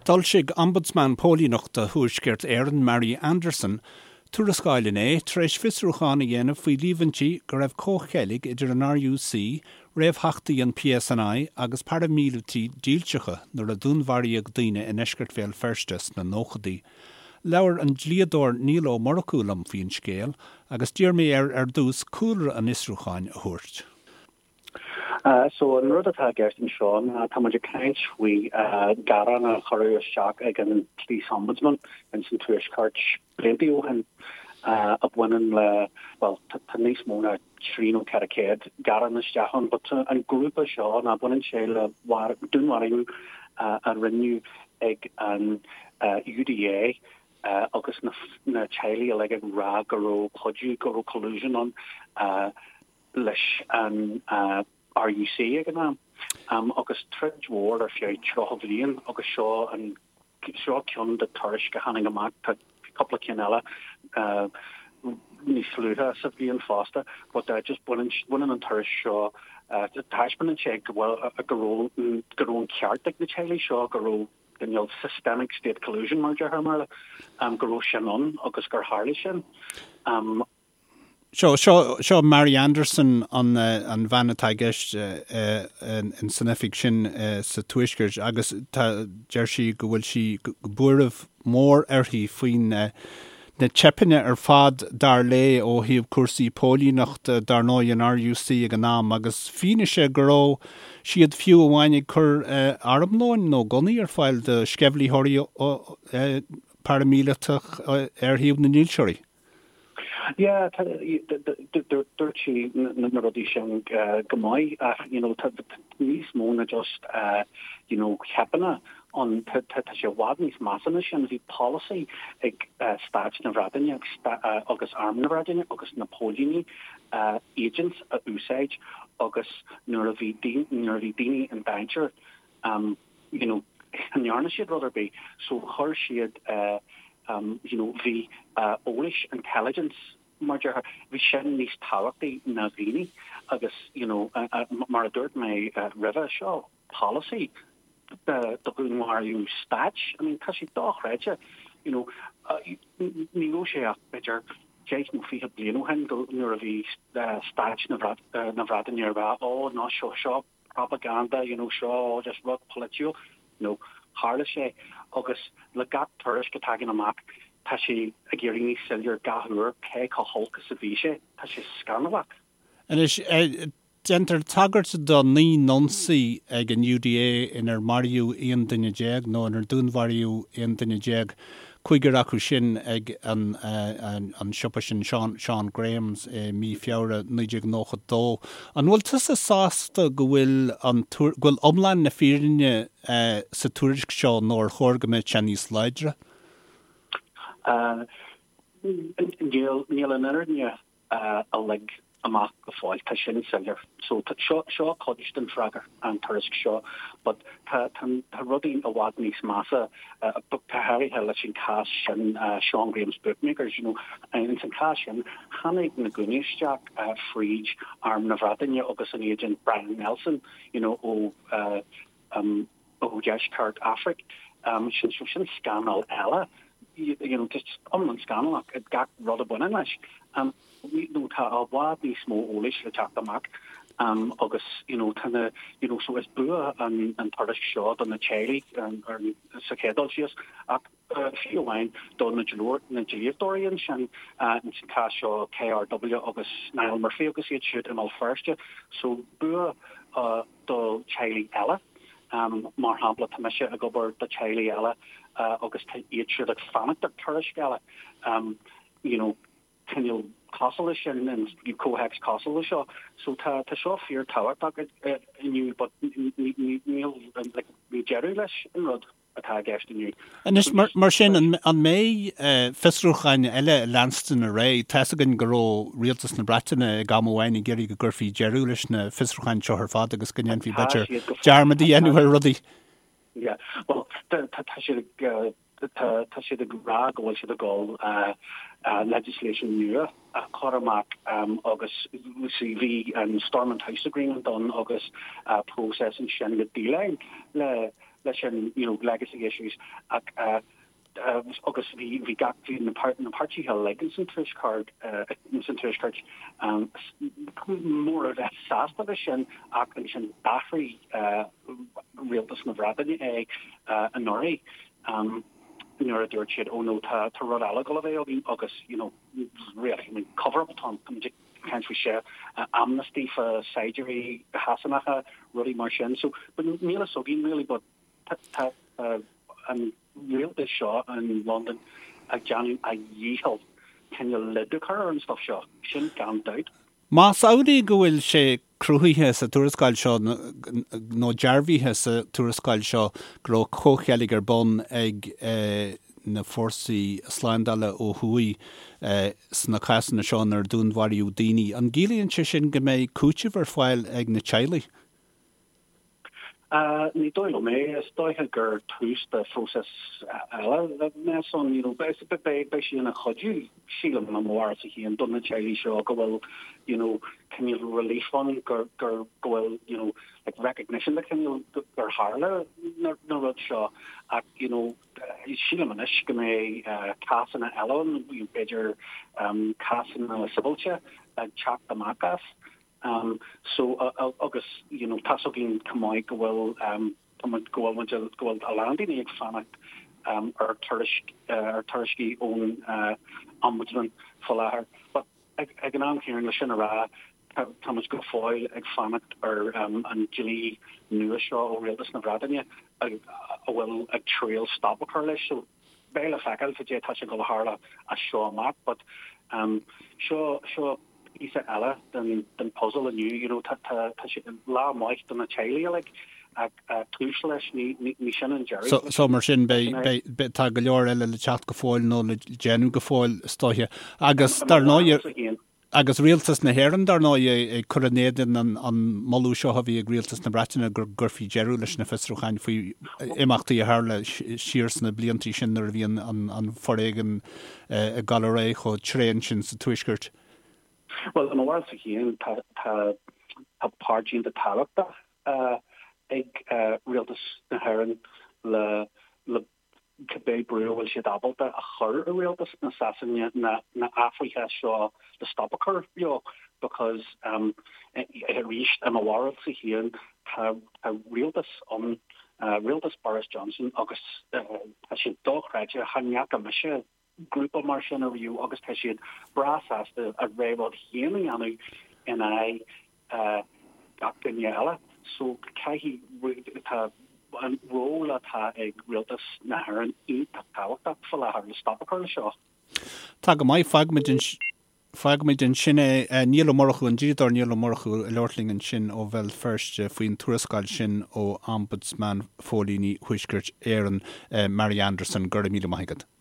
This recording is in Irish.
D'fhoilsigh Ombudsman Póilíneachta Thuaisceart Éireann, Mary Anderson, tuarascáil inné tar éis fiosrúchán a dhéanamh faoi líomhaintí go raibh comhcheilg idir an RUC, réamhtheachtaí an PSNI agus paraimíleataigh dílseacha nuair a dúnmharaíodh daoine i ndeisceart Bhéal Feirste sna nóchaidí. Labhair an dlíodóir Niall Ó Murchú liom faoin scéal agus d'iarr mé air ar dtús cúlra an fhiosrúcháin a thabhairt. So an rud atá i gceist anseo ná tá muid ag caint faoi ghearán a cuireadh isteach ag an Police Ombudsman ins an Tuaisceart blianta ó shin a bhaineann le, bhuel, tá níos mó ná 3 nó 400 gearán isteach ann, but an grúpa seo ná baineann sé le dúnmharú a rinneadh ag an UDA agus na teaghlaigh uilig ag rá go raibh cuidiú, go raibh collusion ann. leis an RUC ag an am agus troid mhór ar feadh 30 bhliain agus seo an seo ceann de tuairisc a tháinig amach, tá cúpla ceann eile níos luaithe sa bhliain fosta but just baineann baineann an tuairisc seo taispeánann sé go bhfuil go raibh go raibh an ceart ag na teaghlaigh seo go raibh cineál systemic state collusion mar a deirtear i mBéarla go raibh sin ann agus gur tharla sin. Seo, seo, seo Mary Anderson an, an bhean atá i gceist in san oifig sin sa Tuaisceart agus tá, deir sí go bhfuil sí, buaireamh mór uirthi faoin na teipeanna ar fad dar léi ó thaobh cúrsaí póilíneachta, dar ndóigh an RUC ag an am agus fianaise go raibh siad fiú amháin ag cur armlóin nó gunnaí ar fáil do sceimhlitheoirí paraimíleatach ar thaobh na ndílseoirí. Yeah, dúirt sí na rudaí sin go maith ach you know tá níos mó ná just you know teipeanna ann, tá sé i bhfad níos measa ná sin. Bhí polasaí ag Stáit na Breataine agus Arm na Breataine agus na póilíní agents a úsáid agus nuair a bhí nuair a bhí daoine in danger you know ní dhearna siad rud ar bith so chuir siad you know bhí eolais intelligence mar déarfá bhí sin níos tábhachtaí ná daoine agus you know mar a dúirt mé roimhe seo polasaí do dhúnmharú stáit I mean tá sé dochreidte you know ní raibh sé ach b'fhéidir 10 nó 20 bliain ó shin go nuair a bhí stáit na Breataine ag rá ó ná seo seo propaganda, you know, seo just rud polaitiúil. No, tharla sé agus le gach tuairisc a tagann amach tá sé ag éirí níos soiléir gach uair cé chomh holc is a bhí sé. Tá sé scannalach. Anois, déantar tagairt do 9 n-ionsaí ag an UDA inar maraíodh 11 duine nó inar dúnmharaíodh 11 duine. Cúigear acu sin ag an siopa sin, Sean Graham's, i mí Feabhra 1992. An bhfuil tusa sásta go bhfuil an, go bhfuil iomlán na fírinne sa tuairisc seo nó ar chóir go mbeadh sé níos láidre? Níl, níl an fhírinne uilig amach go fóill, tá sin soiléir. So seo, seo cuid den freagra, an tuairisc seo, but tá, tá, tá rudaí i bhfad níos measa, go háirithe leis an cás sin, Sean Graham's Bookmakers, you know, ins an cás sin, tháinig na gunnaí isteach fríd Arm na Breataine agus an agent Brian Nelson, you know, ó, ó Dheisceart Afraic. Sin, so sin scannal eile, you know, just iomlán scannalach gach rud a bhaineann leis. You know, tá i bhfad níos mó eolais le teacht amach agus, you know, tá na, you know, so is bua an, an tuairisc seo do na teaghlaigh sa chéad dul síos ach fiú amháin do na dlíodóirí ansin, ins an cás seo KRW agus Niall Murphy agus iad siúd i mBéal Feirste. So bua do teaghlaigh eile. Mar shampla, tá mise ag obair do teaghlaigh eile agus tá iad siúd ag fanacht ar tuairisc eile, you know, cineál cosúil leis sin, in comhthéacs cosúil le seo. So tá tá seo fíor tábhachtach inniu but níl like níl deireadh leis an rud. atá i gceist inniu. Anois, mar sin, an mbeidh fiosrúcháin eile ag leanstan ar aghaidh? Tá's againn go raibh rialtas na Breataine ag am amháin ag iarraidh go gcuirfí deireadh leis na fiosrúcháin seo ar fad agus go ndéanfaí, b'fhéidir, dearmad a dhéanamh ar rudaí. Yeah, bhuel, tá siad ag, tá siad ag rá go bhfuil siad ag dul legislation nua a chur amach agus bhí an Stormont House Agreement ann agus process ansin le déileáil le. leis an, you know, legacy issues ach agus bhí bhí gach bhí na na páirtithe uilig ins an tuaisceart ins an tuaisceart mór a bheith sásta leis sin ach ansin d'athraigh rialtas na Breataine é anuraidh nuair a dúirt siad oh no tá tá rud eile ag dul a bheith againn agus you know really I mean cover up atá ann tá muid ag caint faoi seo amnesty fá saighdiúirí Shasanacha rudaí mar sin so but níl a fhios againn really but tá an rialtas seo in Londain ag déanamh a dhícheall cineál lid a chur ar an stuff seo, sin gan dabht. Más amhlaidh go bhfuil sé cruthaithe sa tuarascáil seo nó dearbhaithe sa tuarascáil seo go raibh comhcheilg ar bun ag na fórsaí slándála ó thuaidh sna cásanna seo inar dúnmharaíodh daoine, an gciallaíonn sé sin go mbeidh cúiteamh ar fáil ag na teaghlaigh? Ní dóigh liom é. Is dóiche gur tús de phróiseas eile a bheas ann. You know, beidh sé ina chuidiú, sílim, i mo bharúilsa féin, do na teaghlaigh seo go bhfuil, you know, cineál relief ann, gur, gur, go bhfuil, you know, like recognition de chineál gur tharla na, na rud seo. Ach, you know, sílim anois go mbeidh cásanna eile ann, b'fhéidir cásanna sibhialta ag teacht amach as. So, agus, you know, tá's againn chomh maith go bhfuil, tá muid, go bhfuil muid, go bhfuil a lán daoine ag fanacht ar tuairisc, ar tuairiscí ón Ombudsman faoi láthair. But ag, ag an am céanna, le sin a rá, tá, tá muid go fóill ag fanacht ar an dlí nua seo ó Rialtas na Breataine a, a bhfuil ag triail stop a chur leis. So, beidh le feiceáil cad é atá sé ag dul a tharla as seo amach. But seo, seo, píosa eile den puzzle inniu, you know, tá tá sé lá maith do na teaghlaigh uilig ach tús leis, ní ní sin an deireadh. So so mar sin beidh beidh tá go leor eile le teacht go fóill nó le déanamh go fóill is dóiche. Agus dar ndóigh agus rialtas na hÉireann dar ndóigh ag cur in éadan an an moladh seo a bhí ag rialtas na Breataine go gcuirfí deireadh leis na fiosrúcháin faoi imeachtaí a tharla siar sna bliantaí sin nuair a bhí an an an foréigean ag dul ar aghaidh chomh tréan sin sa Tuaisceart. Bhuel, i mo bharúilsa féin, tá tá páirt iontach tábhachtach ag Rialtas na hÉireann le le cibé brú a bhfuil siad ábalta a chur ar Rialtas na Sasana na na athruithe seo le stop a chur leo because arís, i mo bharúilsa féin, tá tá rialtas ann, rialtas Boris Johnson agus tá siad dochreidte, chan fhaca mise grúpa mar sin ariamh agus tá siad breá sásta a rogha rud féin a dhéanamh in aghaidh gach duine eile. So caithfidh, tá an ról atá ag rialtas na hÉireann iontach tábhachtach faoi láthair le stop a chur le seo. Tá go maith, fágfaimid Fágfaimid ansin é. Niall Ó Murchú, an dlíodóir Niall Ó Murchú ag labhairt linn ansin ó Bhéal Feirste faoin tuarascáil sin ó Ombudsman Phóilíní Thuaisceart Éireann, Mary Anderson. Go raibh míle maith agat.